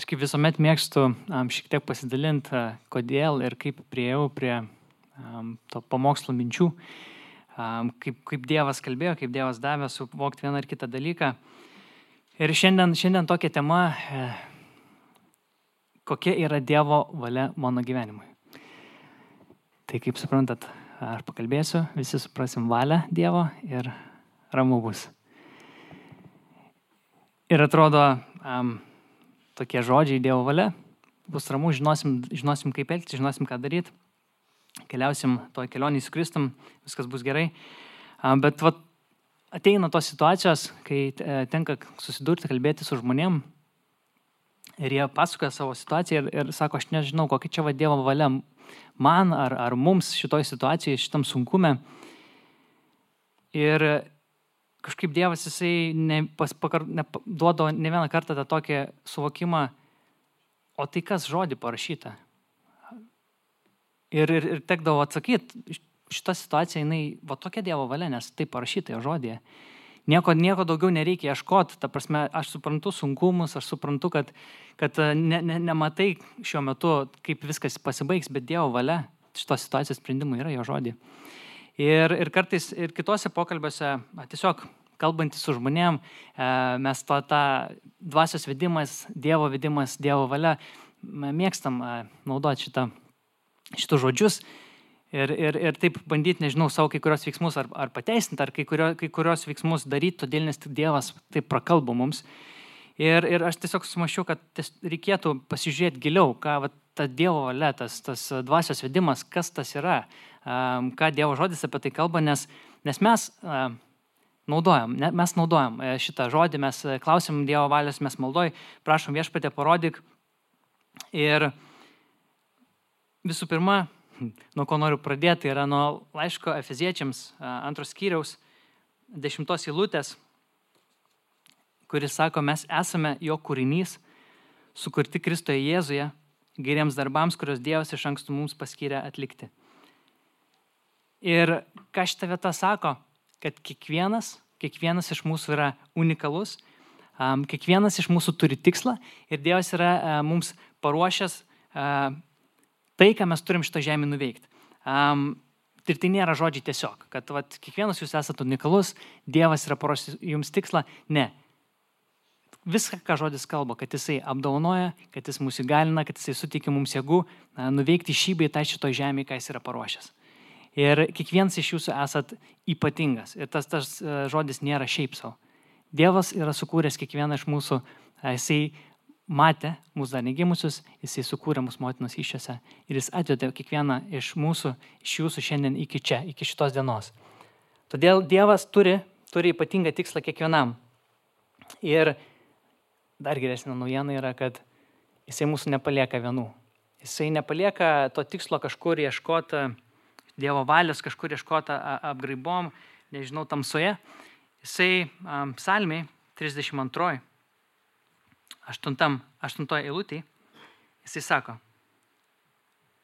Aš kaip visuomet mėgstu šiek tiek pasidalinti, kodėl ir kaip priėjau prie to pamokslo minčių, kaip Dievas kalbėjo, kaip Dievas davė suvokti vieną ar kitą dalyką. Ir šiandien tokia tema, kokia yra Dievo valia mano gyvenimui. Tai kaip suprantat, aš pakalbėsiu, visi suprasim valią Dievo ir ramu bus. Ir atrodo, tokie žodžiai Dievo valia, bus ramu, žinosim kaip elgtis, žinosim ką daryti, keliausim toj kelionį su Kristum, viskas bus gerai. Bet ateina tos situacijos, kai tenka susidurti, kalbėti su žmonėm ir jie pasakoja savo situaciją ir sako, aš nežinau, kokia čia Dievo valia man ar mums šitoj situacijoje, šitam sunkume. Ir kažkaip Dievas jisai duodo ne vieną kartą tą tokį suvokimą, o tai kas žodį parašyta. Ir tekdavo atsakyti, šita situacija, jinai, tokia Dievo valia, nes tai parašyta jo žodėje. Nieko daugiau nereikia ieškoti, ta prasme, aš suprantu sunkumus, aš suprantu, kad nematai šiuo metu, kaip viskas pasibaigs, bet Dievo valia šitos situacijos sprendimų yra jo žodį. Ir kartais ir kitose pokalbiuose, tiesiog kalbantys su žmonėm, mes tą dvasios vedimas, Dievo vedimas, Dievo valia, mėgstam naudoti šitus žodžius ir taip bandyti, nežinau, savo kai kurios veiksmus ar pateisinti, ar kai kurios veiksmus daryti, todėl nes tik Dievas taip prakalba mums. Ir aš tiesiog sumaščiau, kad reikėtų pasižiūrėti giliau, ką ta Dievo valia, tas dvasios vedimas, kas tas yra, ką Dievo žodis apie tai kalba, nes mes naudojam šitą žodį, mes klausim Dievo valios, mes maldoj, prašom Viešpatie parodyk. Ir visų pirma, nuo ko noriu pradėti, yra nuo laiško Efeziečiams 2 skyriaus 10 eilutės, kuris sako, mes esame jo kūrinys, sukurti Kristoje Jėzuje, geriems darbams, kurios Dievas iš anksto mums paskyrė atlikti. Ir ką šita vieta sako, kad kiekvienas iš mūsų yra unikalus, kiekvienas iš mūsų turi tikslą ir Dievas yra mums paruošęs tai, ką mes turim šitą žemę nuveikti. Ir tai nėra žodžiai tiesiog, kad kiekvienas jūs esate unikalus, Dievas yra paruošęs jums tikslą. Ne. Viską, ką žodis kalba, kad jisai apdovanoja, kad jis mūsų įgalina, kad jisai suteikia mums jėgų nuveikti šį bei tą šitoj žemėje, ką jis yra paruošęs. Ir kiekvienas iš jūsų esat ypatingas. Ir tas žodis nėra šiaip savo. Dievas yra sukūręs kiekvieną iš mūsų, jisai matė mūsų dar negimusius, jisai sukūrė mūsų motinos įsčiose ir jis atvedė kiekvieną iš mūsų, iš jūsų šiandien iki čia, iki šitos dienos. Todėl Dievas turi ypatingą tikslą kiekvienam. Ir dar geresnė naujiena yra, kad jisai mūsų nepalieka vienų. Jisai nepalieka to tikslo kažkur ieškoti Dievo valios, kažkur ieškoti apgraibom, nežinau, tamsoje. Jisai psalmiai 32, 8 eilutėje, jisai sako,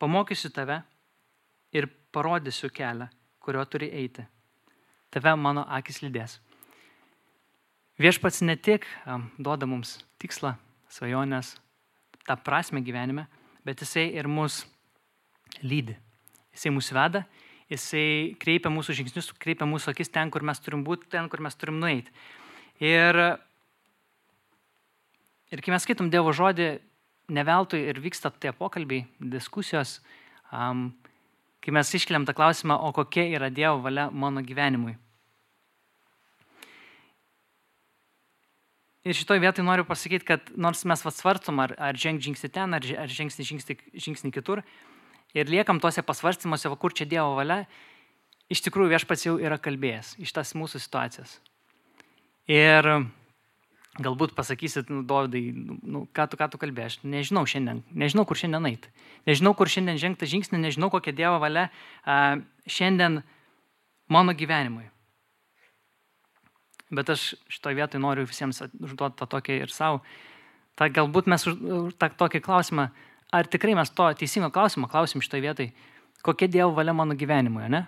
pamokysiu tave ir parodysiu kelią, kurio turi eiti. Tave mano akis lydės. Viešpats ne tik duoda mums tikslą, svajonės, tą prasmę gyvenime, bet jisai ir mus lydi. Jisai mus veda, jisai kreipia mūsų žingsnius, kreipia mūsų akis ten, kur mes turim būti, ten, kur mes turim nueiti. Ir kai mes skaitom Dievo žodį, ne veltui ir vyksta tie pokalbiai, diskusijos, kai mes iškeliam tą klausimą, o kokia yra Dievo valia mano gyvenimui. Ir šitoj vietoj noriu pasakyti, kad nors mes svarstom, ar žengti žingsnį ten, ar žengti žingsnį kitur, ir liekam tose pasvarstymuose, kur čia Dievo valia, iš tikrųjų Viešpats jau yra kalbėjęs iš tas mūsų situacijas. Ir galbūt pasakysit, Dovydai, ką tu kalbėjai, aš nežinau šiandien, nežinau, kur šiandien eiti. Nežinau, kur šiandien žengti žingsnį, nežinau, kokia Dievo valia šiandien mano gyvenimui. Bet aš šitoj vietoj noriu visiems užduoti tą tokį ir savo. Galbūt mes tą tokį klausimą, ar tikrai mes to teisingo klausimą klausim šitoj vietoj, kokia Dievo valia mano gyvenimui, ne?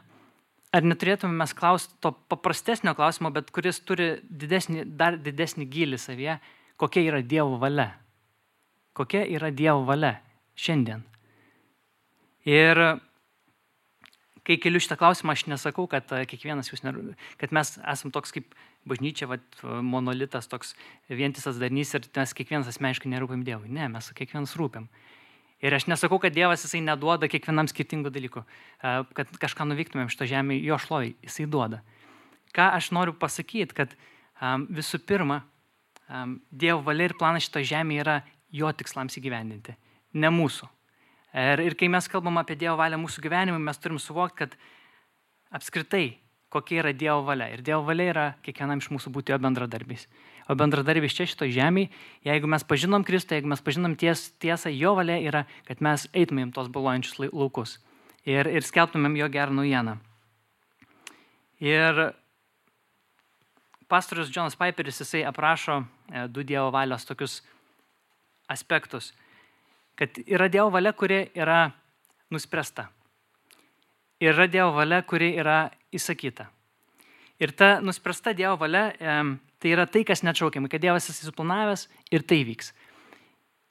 Ar neturėtume mes klausti to paprastesnio klausimo, bet kuris turi dar didesnį gylį savyje, kokia yra Dievo valia? kokia yra Dievo valia šiandien. Ir kai keliu šitą klausimą, aš nesakau, kad kiekvienas jūs, kad mes esam toks kaip bažnyčia, monolitas, toks vientisas darinys ir mes kiekvienas asmeniškai nerūpim Dievui. Ne, mes kiekvienas rūpim. Ir aš nesakau, kad Dievas jisai neduoda kiekvienam skirtingų dalykų, kad kažką nuveiktumėm šito žemėje, jo šlovai, jisai duoda. Ką aš noriu pasakyti, kad visų pirma, Dievo valia ir planas šito žemėje yra jo tikslams įgyvendinti, ne mūsų. Ir kai mes kalbam apie Dievo valią mūsų gyvenimui, mes turim suvokti, kad apskritai, kokia yra Dievo valia. Ir Dievo valia yra kiekvienam iš mūsų būti jo bendradarbiais. O bendradarbiais čia šito žemėje, jeigu mes pažinom Kristų, jeigu mes pažinom tiesą, jo valia yra, kad mes eitumėm tos balojančius laukus ir skelbtumėm jo gerą naujieną. Ir pastorius Jonas Piperis, jisai aprašo du Dievo valios tokius aspektus, kad yra Dievo valia, kuri yra nuspręsta. Ir yra Dievo valia, kuri yra įsakyta. Ir ta nuspręsta Dievo valia, tai yra tai, kas neatšaukiama, kad Dievas jis suplanavęs ir tai vyks.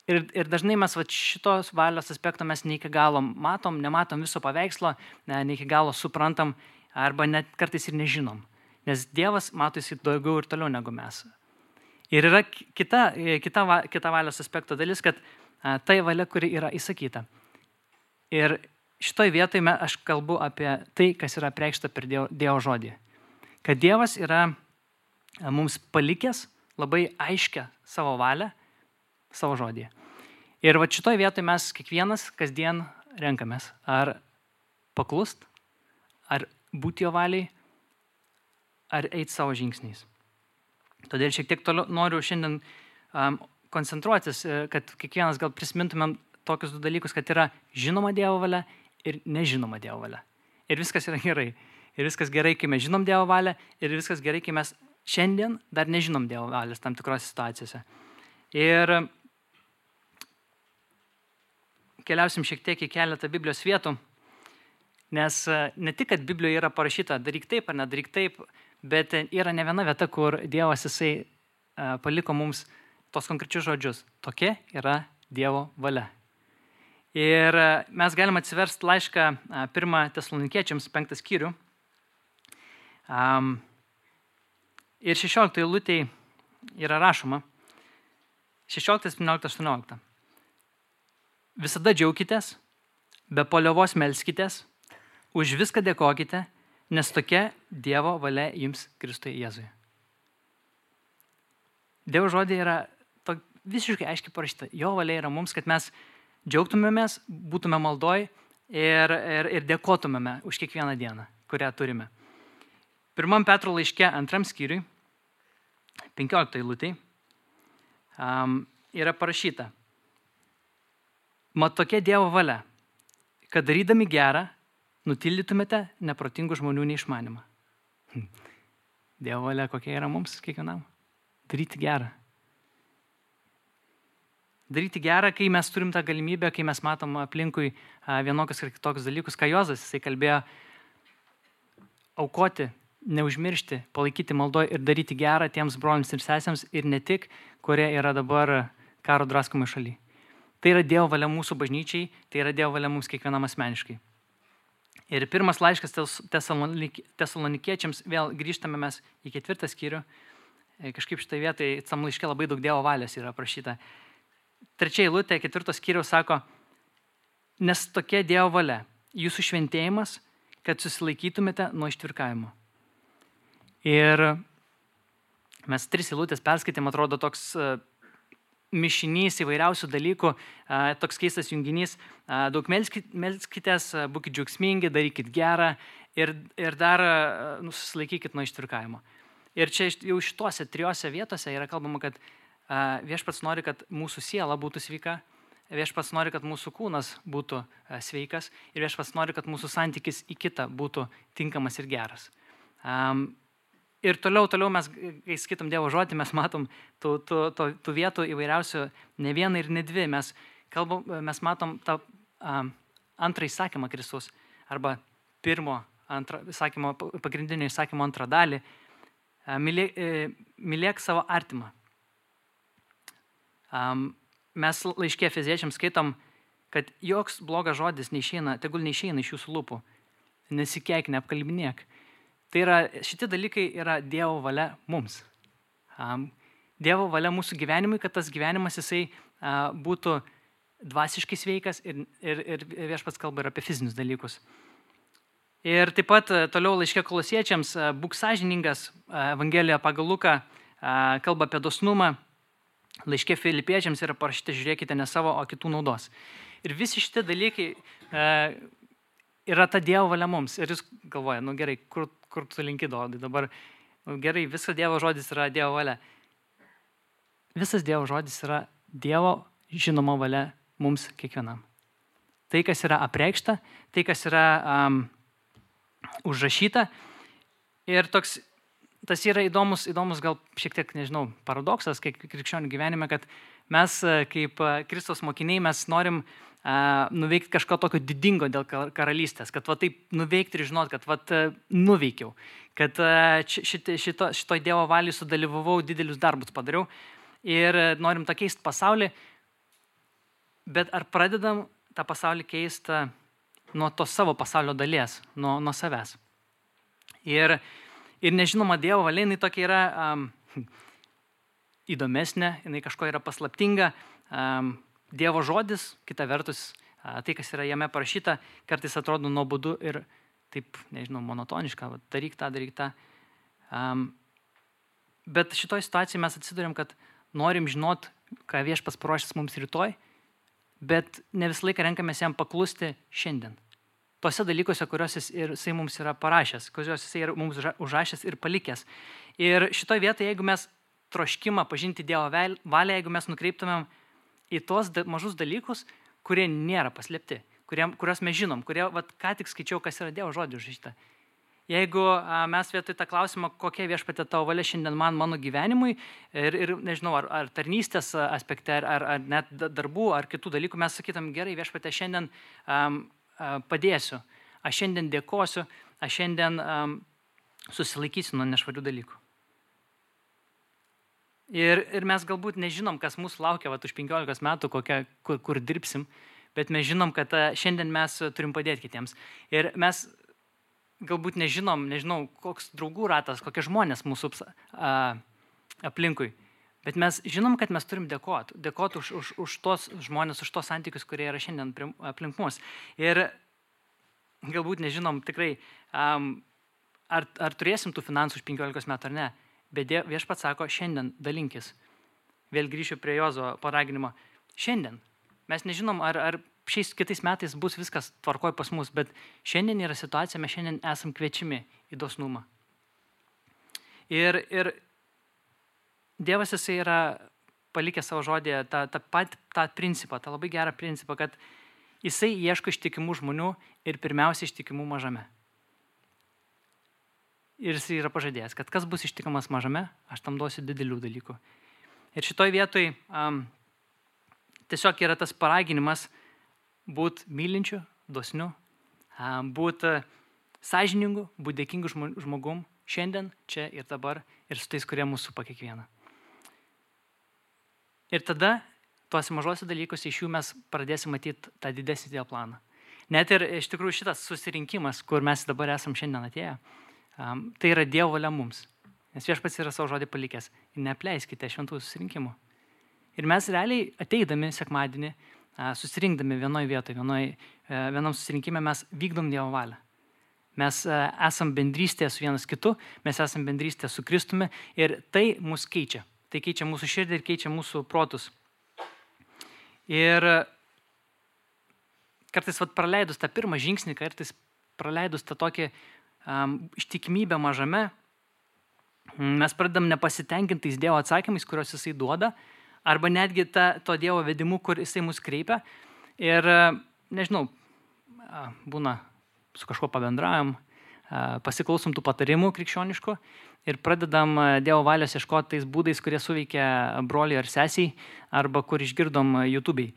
Ir dažnai mes šitos valios aspekto mes ne iki galo matom, nematom viso paveikslo, ne iki galo suprantam, arba net kartais ir nežinom. Nes Dievas mato jis daugiau ir toliau negu mes. Ir yra kita valios aspekto dalis, kad tai valia, kuri yra įsakyta. Ir šitoj vietoj aš kalbu apie tai, kas yra apreikšta per Dievo žodį. Kad Dievas yra mums palikęs labai aiškę savo valią, savo žodį. Ir šitoj vietoj mes kiekvienas kasdien renkamės, ar paklust, ar būti jo valiai, ar eiti savo žingsniais. Todėl šiek tiek toliau noriu šiandien koncentruotis, kad kiekvienas gal prisimintumėm tokius du dalykus, kad yra žinoma Dievo valia ir nežinoma Dievo valia. Ir viskas yra gerai. Ir viskas gerai, kai mes žinom Dievo valią, ir viskas gerai, kai mes šiandien dar nežinom Dievo valios tam tikrose situacijose. Ir keliausim šiek tiek į keletą Biblijos vietų, nes ne tik, kad Biblijoje yra parašyta daryk taip ar nedaryk taip, bet yra ne viena vieta, kur Dievas jisai paliko mums tos konkrečius žodžius. Tokia yra Dievo valia. Ir mes galim atsiversti laišką 1 Tesalonikiečiams 5 skyrių. Ir 16 eilutėj yra rašoma, 16, 17, 18. Visada džiaukitės, be paliovos melskitės, už viską dėkokite, nes tokia Dievo valia jums Kristuje Jėzuje. Dievo žodė yra visiškai aiškiai parašyta. Jo valia yra mums, kad mes džiaugtumėmės, būtume maldoj ir dėkotumėme už kiekvieną dieną, kurią turime. 1 Petro laiške 2 skyriui, 15 eilutėj, yra parašyta. Mat tokia Dievo valia, kad darydami gerą, nutildytumėte neprotingų žmonių neišmanimą. Dievo valia kokia yra mums kiekvienam? Daryti gerą. Daryti gerą, kai mes turim tą galimybę, kai mes matom aplinkui vienokius ir kitokius dalykus, ką Jozas, jisai kalbėjo, aukoti, neužmiršti, palaikyti maldoj ir daryti gerą tiems broliams ir sesėms ir ne tik, kurie yra dabar karo draskomai šaly. Tai yra Dievo valia mūsų bažnyčiai, tai yra Dievo valia mums kiekvienam asmeniškai. Ir pirmas laiškas Tesalonikiečiams, vėl grįžtame mes į 4 skyrių, kažkaip šitai vietai, tam laiške labai daug Dievo valios yra aprašyta. 3 eilutė 4 skyriaus sako, nes tokia Dievo valia, jūsų šventėjimas, kad susilaikytumėte nuo ištvirkavimo. Ir mes 3 eilutės perskaitėm, atrodo toks mišinys įvairiausių dalykų, toks keistas junginys, daug melskitės, būkit džiaugsmingi, darykit gerą ir dar susilaikykit nuo ištvirkavimo. Ir čia jau šituose 3 vietose yra kalbama, kad Viešpats nori, kad mūsų siela būtų sveika, Viešpats nori, kad mūsų kūnas būtų sveikas ir Viešpats nori, kad mūsų santykis į kitą būtų tinkamas ir geras. Ir toliau mes, kai skaitom Dievo žodį, mes matom tų vietų įvairiausių ne vieną ir ne dvi. Mes matom tą antrą įsakymą Kristus arba pagrindinio įsakymo antrą dalį. Mylėk savo artimą. mes laiške Efeziečiams skaitom, kad joks blogas žodis neišeina, tegul neišeina iš jūsų lūpų. Nesikeik, neapkalbinėk. Tai yra, šitie dalykai yra Dievo valia mums. Dievo valia mūsų gyvenimui, kad tas gyvenimas jisai būtų dvasiškai sveikas ir Viešpats kalba ir apie fizinius dalykus. Ir taip pat toliau laiške Kolosiečiams būk sąžiningas, Evangelija pagal Luką kalba apie dosnumą, laiške Filipiečiams yra parašyta, žiūrėkite ne savo, o kitų naudos. Ir visi šitie dalykai yra ta Dievo valia mums. Ir jūs galvoja, gerai, kur tu linki Dovydai dabar, gerai, visas Dievo žodis yra Dievo valia. Visas Dievo žodis yra Dievo žinoma valia mums kiekvienam. Tai, kas yra apreikšta, tai, kas yra užrašyta. Ir tas yra įdomus gal šiek tiek, nežinau, paradoksas krikščionių gyvenime, kad mes kaip Kristaus mokiniai mes norim nuveikti kažko tokio didingo dėl karalystės, kad taip nuveikti ir žinot, kad nuveikiau, kad šitoj Dievo valiai sudalyvavau, didelius darbus padariau ir norim tą keisti pasaulį, bet ar pradedam tą pasaulį keisti nuo to savo pasaulio dalies, nuo savęs. Ir nežinoma Dievo valia, jinai tokia yra įdomesnė, jinai kažko yra paslaptinga. Dievo žodis, kita vertus, tai, kas yra jame parašyta, kartais atrodo nuobodu ir taip, nežinau, monotoniška, daryk tą. Bet šitoj situacijai mes atsiduriam, kad norim žinot, ką Viešpats paruošęs mums rytoj, bet ne visą laiką renkamės jam paklusti šiandien. Tose dalykuose, kuriuos jisai mums yra parašęs, kuriuos jisai yra mums užrašęs ir palikęs. Ir šitoj vietoje, jeigu mes troškimą pažinti Dievo valią, jeigu mes nukreiptumėm į tos mažus dalykus, kurie nėra paslėpti, kuriuos mes žinom, kurie, ką tik skaičiau, kas yra Dievo žodžių užrašyta. Jeigu mes vietoj tą klausimą, kokia Viešpatie tavo valia šiandien mano gyvenimui ir nežinau, ar tarnystės aspekte, ar net darbų, ar kitų dalykų, mes sakytum, gerai, Viešpatie, šiandien padėsiu, aš šiandien dėkosiu, aš šiandien susilaikysiu nuo nešvarių dalykų. Ir mes galbūt nežinom, kas mūsų laukia už 15 metų, kur dirbsim, bet mes žinom, kad šiandien mes turim padėti kitiems. Ir mes galbūt nežinau, koks draugų ratas, kokie žmonės mūsų aplinkui. Bet mes žinom, kad mes turim dėkoti už tos žmonės, už tos santykius, kurie yra šiandien aplink mus. Ir galbūt nežinom tikrai, ar turėsim tų finansų už 15 metų ar ne. Bet Viešpats sako, šiandien dalinkis. Vėl grįšiu prie Jozo paraginimo. Šiandien. Mes nežinom, ar šiais kitais metais bus viskas tvarkoj pas mus, bet šiandien yra situacija, mes šiandien esam kviečiami į dosnumą. Ir Dievas jisai yra palikęs savo žodėje tą principą, tą labai gerą principą, kad jisai ieško ištikimų žmonių ir pirmiausia ištikimų mažame. Ir jisai yra pažadėjęs, kad kas bus ištikimas mažame, aš tam duosiu didelių dalykų. Ir šitoj vietoj tiesiog yra tas paraginimas būt mylinčiu, dosniu, būt sąžiningu, būt dėkingu žmogum šiandien, čia ir dabar, ir su tais, kurie mūsų supa kiekvieną. Ir tada tuose mažose dalykuose iš jų mes pradėsim matyti tą didesnį Dievo planą. Net ir iš tikrųjų šitas susirinkimas, kur mes dabar esam šiandien atėję, tai yra Dievo valia mums. Nes Viešpats yra savo žodį palikęs. Ir neapleiskite šventų susirinkimų. Ir mes realiai ateidami sekmadienį, susirinkdami vienoje vietoje, vienam susirinkime mes vykdom Dievo valią. Mes esam bendrystėje su vienas kitu, mes esam bendrystėje su Kristumi ir tai mus keičia. Tai keičia mūsų širdį ir keičia mūsų protus. Ir kartais praleidus tą pirmą žingsnį, kartais praleidus tą tokį ištikimybę mažame, mes pradedam nepasitenkintais Dievo atsakymais, kuriuos jisai duoda, arba netgi to Dievo vedimu, kur jisai mus kreipia. Ir, nežinau, būna su kažkuo pabendraujam, pasiklausom tų patarimų krikščioniškų ir pradedam Dievo valios ieškoti tais būdais, kurie suveikia broliui ar sesiai, arba kur išgirdom YouTube'ai.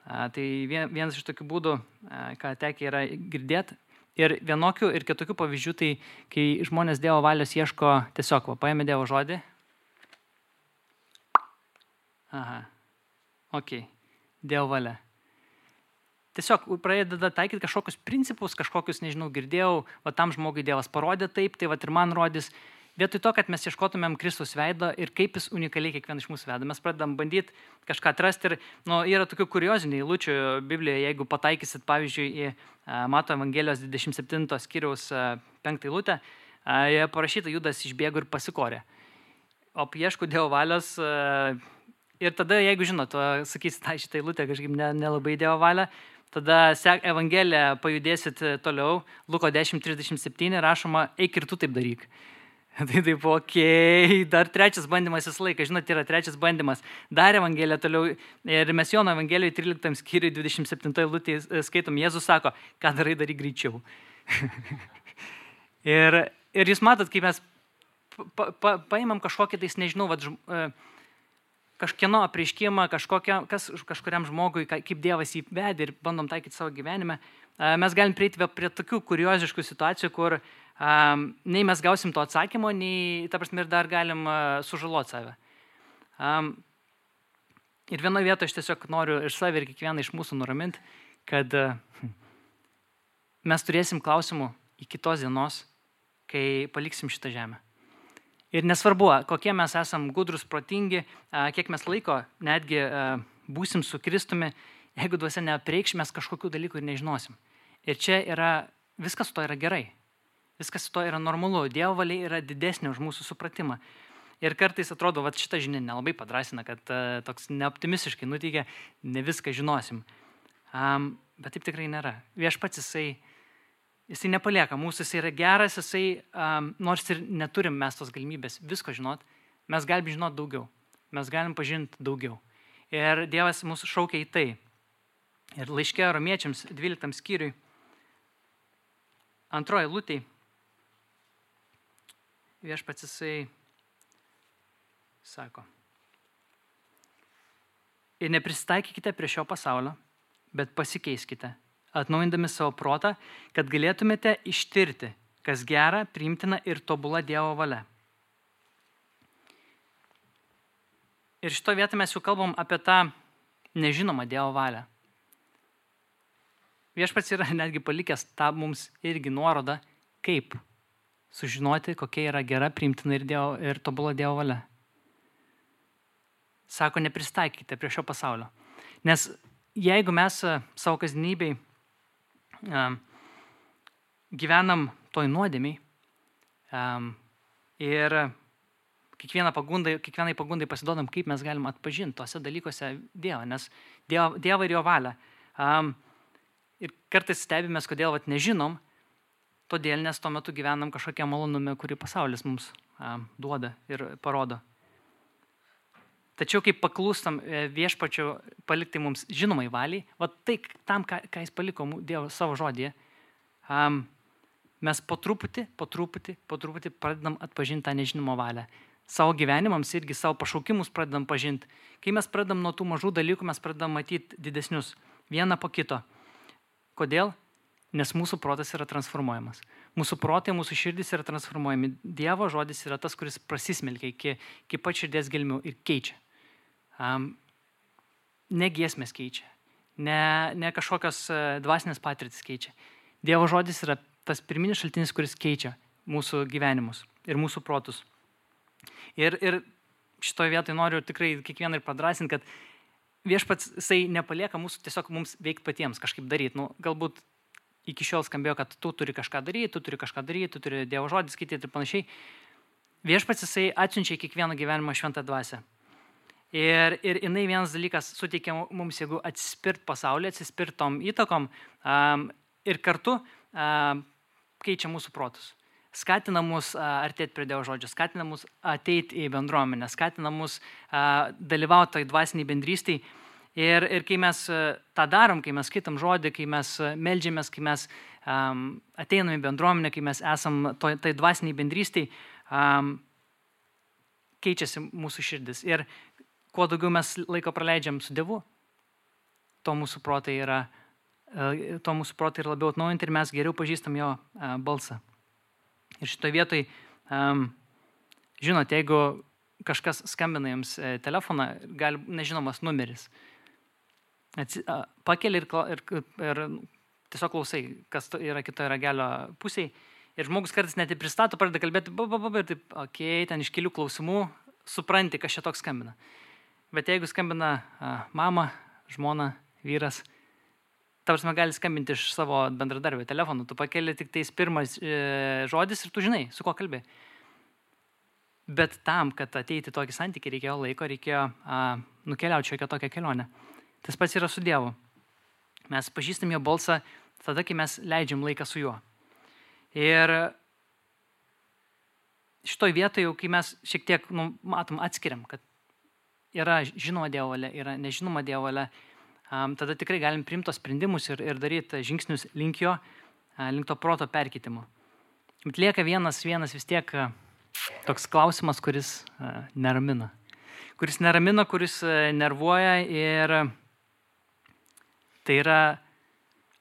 Tai vienas iš tokių būdų, ką tekia yra girdėti. Ir vienokių ir kitokių pavyzdžių, tai kai žmonės Dievo valios ieško tiesiog, paėmė Dievo žodį. Aha, okei. Dievo valia. Tiesiog pradeda taikyti kažkokius principus, kažkokius, nežinau, girdėjau, va tam žmogui Dievas parodė taip, tai va ir man rodys. Vietoj to, kad mes ieškotumėm Kristaus veido ir kaip jis unikaliai kiekvieną iš mūsų veda, mes pradedam bandyti kažką atrasti ir yra tokių kuriozinių eilučių Biblijoje, jeigu pataikysit, pavyzdžiui, į Mato Evangelijos 27 skyriaus 5 eilutę, joje parašyta, Judas išbėgo ir pasikorė. O ieško Dievo valios ir tada, jeigu žinot, sakysit, šitą eilutę kažkaip nelabai Dievo valia, tada Evangeliją pajudėsit toliau, Luko 10:37 rašoma, eik ir tu taip daryk. Tai taip, okei, dar trečias bandymas visą laiką, žinot, yra trečias bandymas. Dar Evangeliją toliau, ir mes Jono Evangelijoje 13 skyriui 27 eilutėje skaitom, Jėzus sako, ką darai, daryk greičiau. ir jūs matot, kai mes paimam kažkokį, tais nežinau, kažkieno apreiškimą, kažkuriam žmogui, kaip Dievas jį vedė ir bandom taikyti savo gyvenime, mes galim prieiti prie tokių kurioziškų situacijų, kur nei mes gausim to atsakymo, nei, ta prasme, ir dar galim sužaloti save. Ir vienoje vietoje aš tiesiog noriu ir save ir kiekvieną iš mūsų nuraminti, kad mes turėsim klausimų iki tos dienos, kai paliksim šitą žemę. Ir nesvarbu, kokie mes esam gudrus, protingi, kiek mes laiko netgi būsim su Kristumi, jeigu dvasia neapreikš, mes kažkokių dalykų ir nežinosim. Ir čia viskas su to yra gerai. Viskas su to yra normalu. Dievo valia yra didesnė už mūsų supratimą. Ir kartais atrodo, šitą žinią nelabai padrasina, kad toks neoptimistiškai nuteikia, ne viską žinosim. Bet taip tikrai nėra. Viešpats jisai nepalieka mūsų, jisai yra geras, nors ir neturim mes tos galimybės visko žinot, mes galim žinot daugiau, mes galim pažinti daugiau. Ir Dievas mūsų šaukia į tai. Ir laiške Romiečiams 12 skyriui, 2 eilutėj, viešpats jisai sako, ir nepristaikykite prie šio pasaulio, bet pasikeiskite, atnaujindami savo protą, kad galėtumėte ištirti, kas gera, priimtina ir tobula Dievo valia. Ir šito vietą mes jau kalbam apie tą nežinomą Dievo valią. Viešpats yra netgi palikęs tą mums irgi nuorodą, kaip sužinoti, kokia yra gera, priimtina ir tobula Dievo valia. Sako, nepristaikykite prie šio pasaulio. Nes jeigu mes savo kasdienybėj gyvenam toj nuodėmiai ir kiekvienai pagundai pasiduodam, kaip mes galim atpažinti tose dalykuose Dievą, nes Dievą ir jo valią. Ir kartais stebimės, kodėl nežinom, todėl nes tuo metu gyvenam kažkokią malonume, kurį pasaulis mums duoda ir parodo. Tačiau kaip paklūstam viešpačio palikti mums žinomai valiai, tai tam, ką jis paliko Dievo savo žodyje, mes po truputį pradedam atpažinti tą nežinomą valią. Savo gyvenimams irgi savo pašaukimus pradedam pažinti. Kai mes pradedam nuo tų mažų dalykų, mes pradedam matyti didesnius, vieną po kito. Kodėl? Nes mūsų protas yra transformuojamas. Mūsų protai, mūsų širdis yra transformuojami. Dievo žodis yra tas, kuris prasismelkia iki pat širdies gelmių ir keičia. Ne giesmės keičia, ne kažkokios dvasinės patirtis keičia. Dievo žodis yra tas pirminis šaltinis, kuris keičia mūsų gyvenimus ir mūsų protus. Ir šitoje vietoje noriu tikrai kiekvieną ir padrasinti, kad viešpats jisai nepalieka mūsų tiesiog mums veikti patiems, kažkaip daryti. Galbūt iki šiol skambėjo, kad tu turi kažką daryti, tu turi Dievo žodį skaityti ir panašiai. Viešpats jisai atsiunčia kiekvieną gyvenimą šventą dvasią. Ir jinai vienas dalykas suteikia mums, jeigu atsispirt pasaulį, atsispirt tom įtakom ir kartu keičia mūsų protus. Skatina mus artėti prie Dievo žodžio, skatina mus ateiti į bendruomenę, skatina mus dalyvauti toj dvasiniai bendrystėj. Ir kai mes tą darom, kai mes skaitam žodį, kai mes meldžiamės, kai mes ateinam į bendruomenę, kai mes esam toj dvasiniai bendrystėj, keičiasi mūsų širdis. Ir kuo daugiau mes laiko praleidžiam su Dievu, to mūsų protai yra labiau atnaujinti ir mes geriau pažįstam jo balsą. Ir šitoje vietoje, žinot, jeigu kažkas skambina jums telefoną, gali nežinomas numeris. pakeli ir tiesiog klausai, kas yra kitoje ragelio pusėje. Ir žmogus kartais net pristato, pradeda kalbėti, ir taip, ten iš kelių klausimų supranti, kas čia toks skambina. Bet jeigu skambina mama, žmona, vyras, ta prasme gali skambinti iš savo bendradarbio telefonų, tu pakeli tik tais pirmas žodis ir tu žinai, su kuo kalbė. Bet tam, kad ateiti tokį santykį, reikėjo laiko, reikėjo nukeliauti šiokią tokią kelionę. Tas pats yra su Dievu. Mes pažįstam jo balsą tada, kai mes leidžiam laiką su juo. Ir šitoj vietoje, kai mes šiek tiek matom, atskiriam, kad yra žinoma Dievo valia, yra nežinoma Dievo valia, tada tikrai galim priimti tos sprendimus ir daryti žingsnius link jo, link to proto perkeitimo. Bet lieka vienas vis tiek toks klausimas, kuris neramina. Kuris nervuoja ir tai yra,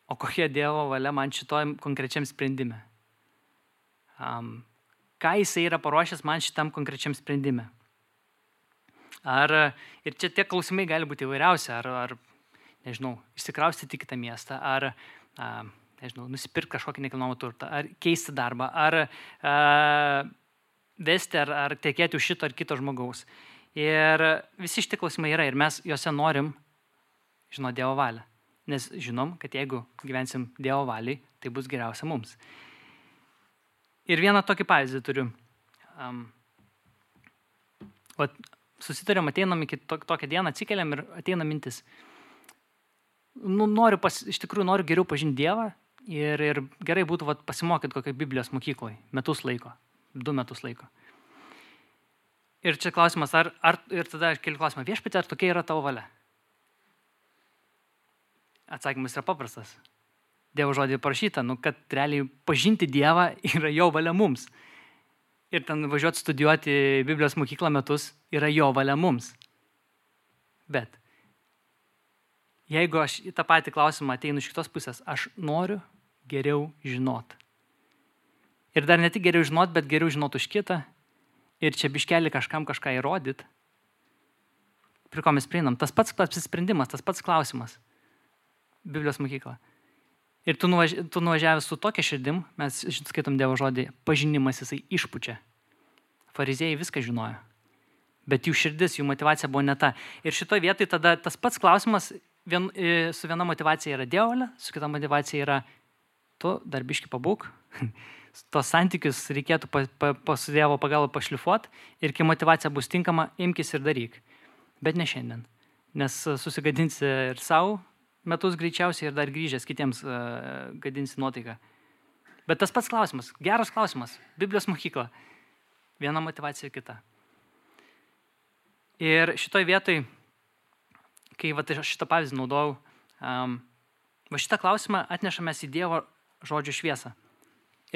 o kokia Dievo valia man šitoj konkrečiam sprendime. Ką jisai yra paruošęs man šitam konkrečiam sprendime. Ir čia tie klausimai gali būti įvairiausi, ar nežinau, išsikraustyti į kitą miestą, ar nežinau, nusipirkti kažkokį nekilnojamą turtą, ar keisti darbą, ar vesti, ar tekėti už šito ar kito žmogaus. Ir visi šitie klausimai yra ir mes juose norim žinoti Dievo valią. Nes žinom, kad jeigu gyvensim Dievo valiai, tai bus geriausia mums. Ir vieną tokį pavyzdį turiu. Susitarėm, ateinam iki tokią dieną, atsikeliam ir ateina mintis. Iš tikrųjų noriu geriau pažinti Dievą ir gerai būtų pasimokyti kokią Biblijos mokykloje 2 metus laiko. Ir čia klausimas, ir tada aš keliu klausimą, viešpatie, ar tokia yra tavo valia? Atsakymas yra paprastas. Dievo žodį parašyta, kad realiai pažinti Dievą yra jo valia mums. Ir ten važiuoti studijuoti Biblijos mokyklą metus yra jo valia mums. Bet jeigu aš į tą patį klausimą ateinu iš kitos pusės, aš noriu geriau žinot. Ir dar ne tik geriau žinot, bet geriau žinot už kitą. Ir čia biškelį kažkam kažką įrodyt. Prie ko mes prieinam? Tas pats apsisprendimas, tas pats klausimas. Biblijos mokykla. Ir tu nuvažiavęs su tokia širdim, mes skaitom Dievo žodį, pažinimas jisai išpučia. Fariziejai viską žinojo. Bet jų širdis, jų motivacija buvo ne ta. Ir šitoje vietoje tada tas pats klausimas su viena motivacija yra Dievo valia, su kita motivacija yra tu dar biškį pabūk. Tos santykius reikėtų su Dievo pagalba pašlifuoti ir kai motivacija bus tinkama, imkis ir daryk. Bet ne šiandien. Nes susigadinsi ir savo metus greičiausiai ir dar grįžęs kitiems gadinsi nuotaiką. Bet tas pats klausimas, geras klausimas, Biblijos mokykla. Viena motivacija kita. Ir šitoj vietoj, kai šitą pavyzdį naudojau, šitą klausimą atnešamės į Dievo žodžio šviesą.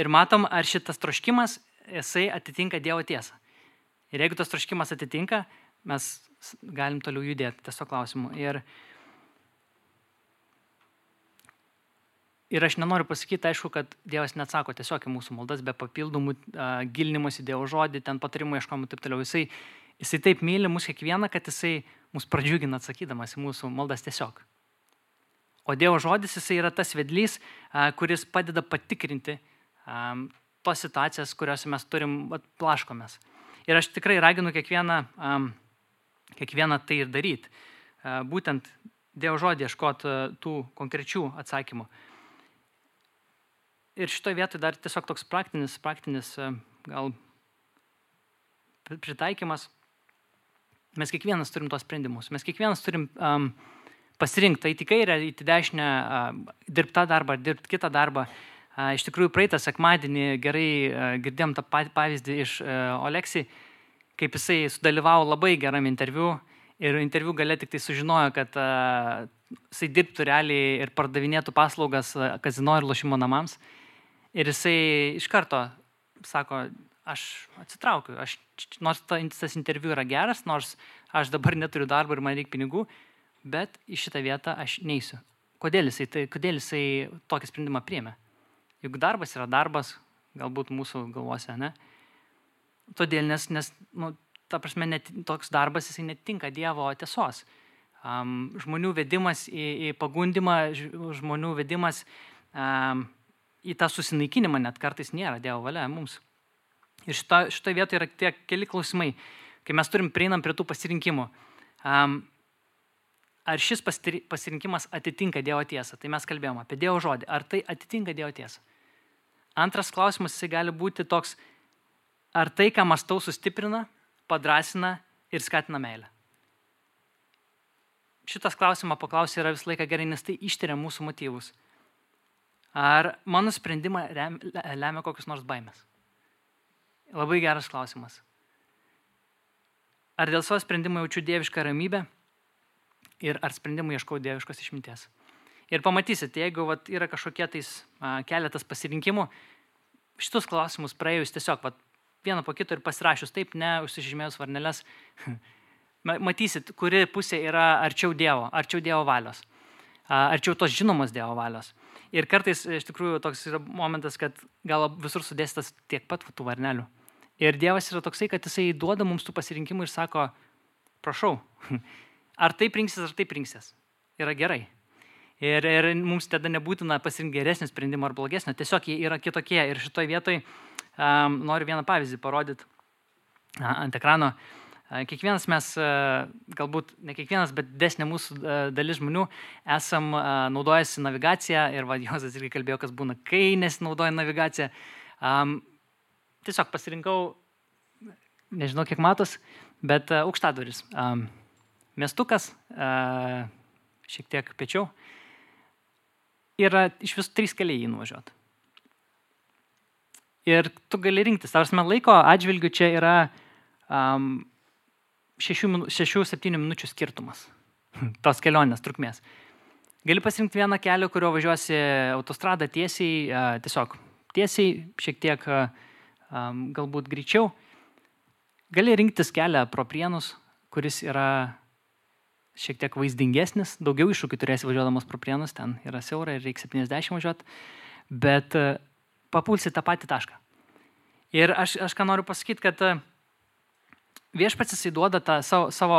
Ir matom, ar šitas troškimas, jisai atitinka Dievo tiesą. Ir jeigu tas troškimas atitinka, mes galim toliau judėti tiesiog klausimu. Ir aš nenoriu pasakyti, aišku, kad Dievas neatsako tiesiog į mūsų maldas, be papildomų gilinimus į Dievo žodį, ten patarimų ieškomų ir taip toliau. Jisai taip myli mus kiekvieną, kad jisai mus pradžiugina atsakydamas į mūsų maldas tiesiog. O Dievo žodis jisai yra tas vedlys, kuris padeda patikrinti tos situacijas, kuriuose mes turim plaškomės. Ir aš tikrai raginu kiekvieną tai ir daryti. Būtent Dievo žodį ieškoti tų konkrečių atsakymų. Ir šitoje vietoje dar tiesiog toks praktinis gal pritaikymas. Mes kiekvienas turim tos sprendimus. Mes kiekvienas turim pasirinkti, eiti į kairę, eiti į dešinę, dirbti tą darbą, dirbti kitą darbą. Iš tikrųjų, praeitą sekmadienį gerai girdėjom tą pavyzdį iš Oleksijai, kaip jisai sudalyvavo labai geram interviu ir interviu gale tik tai sužinojo, kad jisai dirbtų realiai ir pardavinėtų paslaugas kazino ir lošimo namams. Ir jisai iš karto sako, aš atsitraukiu, nors tas interviu yra geras, nors aš dabar neturiu darbo ir man reikia pinigų, bet į šitą vietą aš neisiu. Kodėl jisai tokį sprendimą priėmė? Juk darbas yra darbas, galbūt mūsų galvose, ne? Todėl, nes ta prasme, toks darbas jisai netinka Dievo tiesos. žmonių vedimas į pagundimą, žmonių vedimas į tą susinaikinimą net kartais nėra Dievo valia mums. Ir šitoje vietoje yra tie keli klausimai, kai mes prieinam prie tų pasirinkimų. Ar šis pasirinkimas atitinka Dievo tiesą? Tai mes kalbėjome apie Dievo žodį. Ar tai atitinka Dievo tiesą? Antras klausimas, jisai gali būti toks, ar tai, ką mąstau, sustiprina, padrasina ir skatina meilę. Šitas klausimą paklausyti yra visą laiką gerai, nes tai ištiria mūsų motyvus. Ar mano sprendimą lemia kokius nors baimės? Labai geras klausimas. Ar dėl savo sprendimo jaučiu dievišką ramybę ir ar sprendimų ieškau dieviškos išminties? Ir pamatysit, jeigu yra kažkokie keletas pasirinkimų, šitus klausimus praėjus tiesiog vieną po kito ir pasirašius taip, ne užsižymėjus varneles, matysit, kuri pusė yra arčiau Dievo valios, arčiau tos žinomos Dievo valios. Ir kartais iš tikrųjų toks yra momentas, kad gal visur sudėstas tiek pat tų varnelių. Ir Dievas yra toksai, kad jisai duoda mums tų pasirinkimų ir sako, prašau, ar taip rinksies, yra gerai. Ir mums tada nebūtina pasirinkti geresnį sprendimą ar blogesnį, tiesiog jie yra kitokie. Ir šitoj vietoj noriu vieną pavyzdį parodyti ant ekrano. Kiekvienas mes, galbūt ne kiekvienas, bet didesnė mūsų dalis žmonių esam naudojasi navigaciją ir Jozas irgi kalbėjo, kas būna, kai nesinaudoja navigacija. Tiesiog pasirinkau, nežinau kiek matos, bet aukštadvaris. Miestukas, šiek tiek piečiau. Yra iš visų 3 keliai jį nuvažiuoti. Ir tu gali rinktis. Tarsi laiko atžvilgių čia yra 6-7 minučių skirtumas tos kelionės trukmės. Gali pasirinkti vieną kelią, kurio važiuosi autostradą tiesiai, šiek tiek galbūt greičiau. Gali rinktis kelią pro Prienus, kuris yra šiek tiek vaizdingesnis, daugiau iššūkių turėsi važiuodamas pro Prienus, ten yra siaura ir reikia 70 važiuoti, bet papulsi tą patį tašką. Ir aš ką noriu pasakyti, kad viešpats jisai duoda tą savo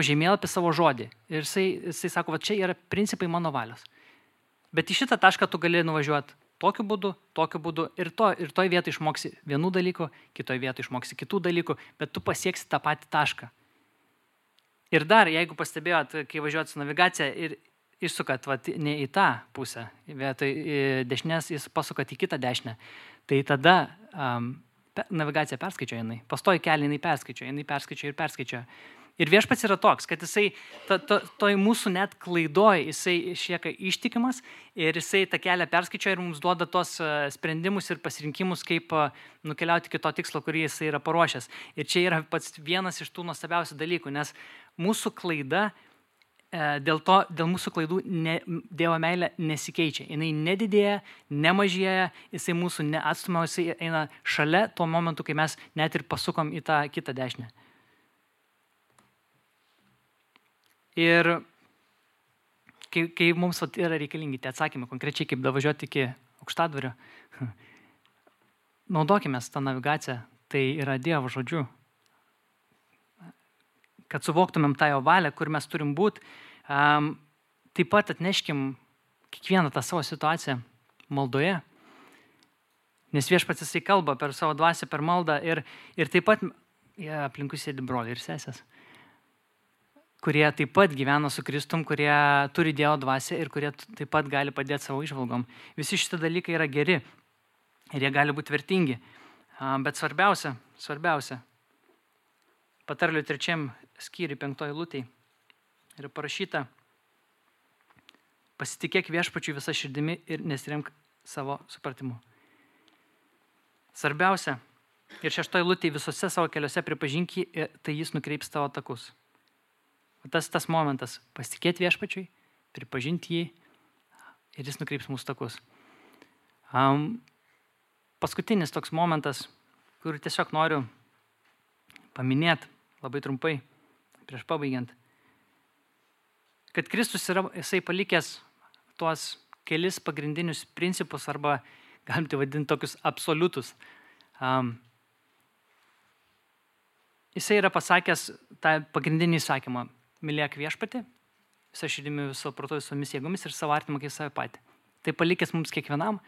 žemėlapį, savo žodį. Ir jisai sako, čia yra principai mano valios. Bet į šitą tašką tu gali nuvažiuoti tokiu būdu ir toj vietoj išmoksi vienų dalykų, kitoj vietoj išmoksi kitų dalykų, bet tu pasieksi tą patį tašką. Ir dar, jeigu pastebėjot, kai važiuojat su navigacija ir išsukat ne į tą pusę, vietoj dešinės jūs pasukat į kitą dešinę, tai tada navigacija perskaičiuoja jinai. Pastoji kelią jinai perskaičiuoja. Ir viešpats yra toks, kad jisai toj mūsų net klaidoj, jisai išlieka ištikimas ir jisai tą kelią perskaičiuoja ir mums duoda tos sprendimus ir pasirinkimus, kaip nukeliauti iki to tikslo, kurį jisai yra paruošęs. Ir čia yra pats vienas iš tų nuostabiausių dalykų, nes mūsų klaida, dėl mūsų klaidų Dievo meilė nesikeičia. Jinai nedidėja, nemažėja, jisai mūsų neatstumia, jisai eina šalia tuo momentu, kai mes net ir pasukom į tą kitą dešinę. Ir kai mums yra reikalingi tie atsakymai, konkrečiai kaip davažiuoti iki aukštadvario, naudokime tą navigaciją, tai yra Dievo žodžiu. Kad suvoktumėm tą jo valią, kur mes turim būti, taip pat atneškim kiekvieną tą savo situaciją maldoje, nes viešpats jisai kalba per savo dvasią, per maldą ir taip pat aplinkui sėdi broliai ir sesės, kurie taip pat gyvena su Kristum, kurie turi Dievo dvasią ir kurie taip pat gali padėti savo įžvalgom. Visi šitie dalykai yra geri ir jie gali būti vertingi. Bet svarbiausia, Patarlių 3 skyriui 5 eilutėj yra parašyta: pasitikėk viešpačiu visą širdimi ir nesiremk savo supratimu. Svarbiausia, ir 6 eilutėj visose savo keliuose pripažink jį, tai jis nukreips tavo takus. Tas momentas, pasitikėti viešpačiui, pripažinti jį ir jis nukreips mūsų takus. Paskutinis toks momentas, kurį tiesiog noriu paminėti labai trumpai, prieš pabaigiant, kad Kristus yra, jisai palikęs tuos kelis pagrindinius principus arba galim tai vadinti tokius absoliutus. Jisai yra pasakęs tą pagrindinį įsakymą: mylėk viešpatį, visą širdimi, viso proto, visomis jėgomis ir savo artimą kaip save patį. Tai palikęs mums kiekvienam.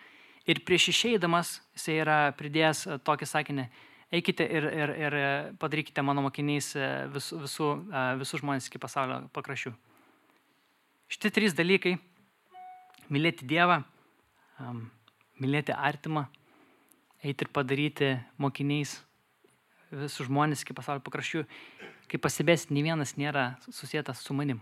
Ir prieš išeidamas jisai yra pridėjęs tokį sakinį, eikite ir padarykite mano mokiniais visus žmonės iki pasaulio pakraščių. Šitie 3 dalykai - mylėti Dievą, mylėti artimą, eiti ir padaryti mokiniais visus žmonės iki pasaulio pakraščių. Kaip pastebėsit, nei vienas nėra susietas su manim.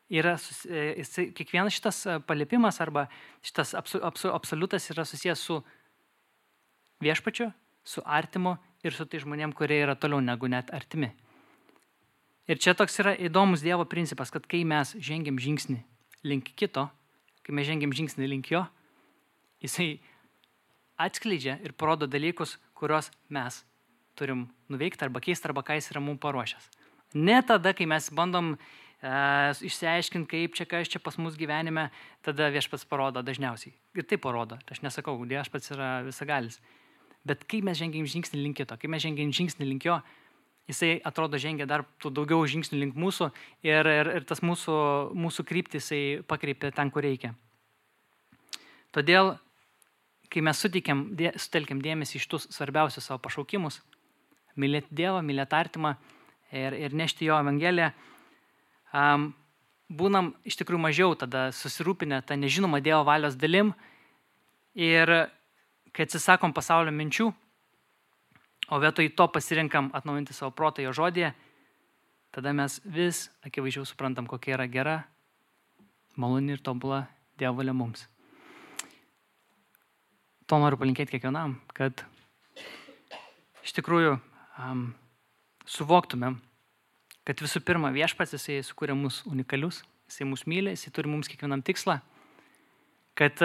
Kiekvienas šitas paliepimas arba šitas absoliutas yra susijęs su viešpačiu, su artimu ir su tai žmonėm, kurie yra toliau negu net artimi. Ir čia toks yra įdomus Dievo principas, kad kai mes žengiam žingsnį link kito, kai mes žengiam žingsnį link jo, jisai atskleidžia ir parodo dalykus, kuriuos mes turim nuveikti arba keisti, arba ką jis yra mums paruošęs. Ne tada, kai mes bandom išsiaiškinti, kaip čia, kas čia pas mus gyvenime, tada viešpats parodo dažniausiai. Ir tai parodo. Aš nesakau, viešpats yra visagalis. Bet kai mes žengiam žingsnį link kito, kai mes žengiam žingsnį link jo, jisai atrodo žengia dar daugiau žingsnių link mūsų ir tas mūsų kryptį jisai pakreipia ten, kur reikia. Todėl, kai mes sutelkiam dėmesį iš tų svarbiausių savo pašaukimus, mylėti Dievą, mylėti artimą ir nešti jo evangeliją, būnam iš tikrųjų mažiau tada susirūpinę tą nežinomą Dievo valios dalim ir kai atsisakom pasaulio minčių, o vietoj to pasirinkam atnaujinti savo protą jo žodyje, tada mes vis akivaizdžiau suprantam, kokia yra gera, maloni ir tobula Dievo valia mums. To noriu palinkėti kiekvienam, kad iš tikrųjų suvoktumėm, kad visų pirma viešpats jisai sukūrė mus unikalius, jisai mus myli, jisai turi mums kiekvienam tikslą, kad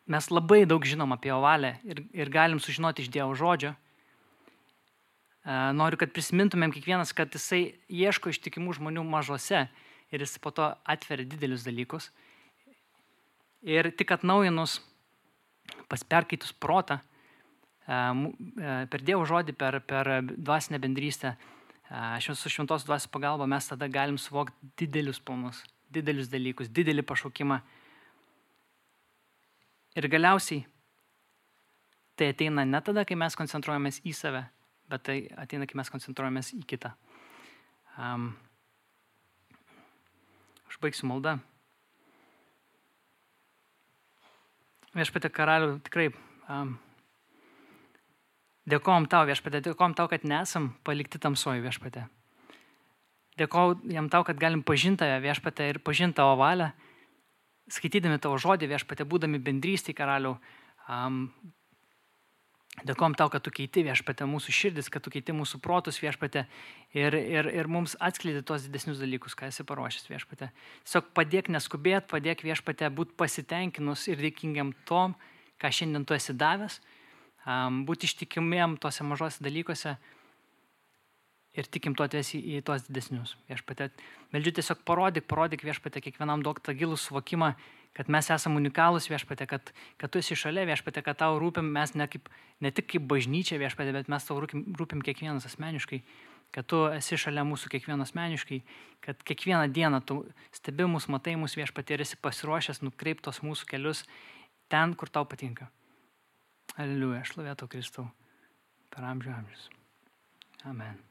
mes labai daug žinom apie jo valią ir galim sužinoti iš Dievo žodžio. Noriu, kad prisimintumėm kiekvienas, kad jisai ieško ištikimų žmonių mažose ir jis po to atveria didelius dalykus. Ir tik atnaujinus, perkaitus protą, per Dievo žodį, per dvasinę bendrystę, su šventos dvasios pagalba mes tada galim suvokti didelius planus, didelius dalykus, didelį pašaukimą. Ir galiausiai tai ateina ne tada, kai mes koncentruojamės į save, bet tai ateina, kai mes koncentruojamės į kitą. Aš baigsiu maldą. Viešpatie karaliau, tikrai dėkojom tau, viešpatie, dėkojom tau, kad nesam palikti tamsoje, viešpatie. Dėkojom tau, kad galim pažinti tave, viešpatie, ir pažinti tavo valią, skaitydami tavo žodį, viešpatie, būdami bendrystėje, karaliau. Dėkojom tau, kad tu keiti, viešpatie, mūsų širdis, kad tu keiti mūsų protus, viešpatie, ir mums atskleidi tuos didesnius dalykus, ką esi paruošęs, viešpatie. Tiesiog padėk neskubėt, padėk, viešpatie, būti pasitenkinus ir dėkingiam tom, ką šiandien tu esi davęs, būti ištikimiem tose mažose dalykuose ir tikim tu atvesi į tuos didesnius. Viešpatie, meldžiu tiesiog parodyk viešpatie, kiekvienam duok tą gilų suvokimą, kad mes esame unikalūs, viešpatie, kad tu esi šalia, viešpatie, kad tau rūpim mes ne tik kaip bažnyčia, viešpatie, bet mes tau rūpim kiekvienas asmeniškai, kad tu esi šalia mūsų kiekvieno asmeniškai, kad kiekvieną dieną tu stebi mus, matai mus, viešpatie, ir esi pasiruošęs nukreiptos mūsų kelius ten, kur tau patinka. Aleliuja, šlovė tau, Kristau, per amžių amžius. Amen.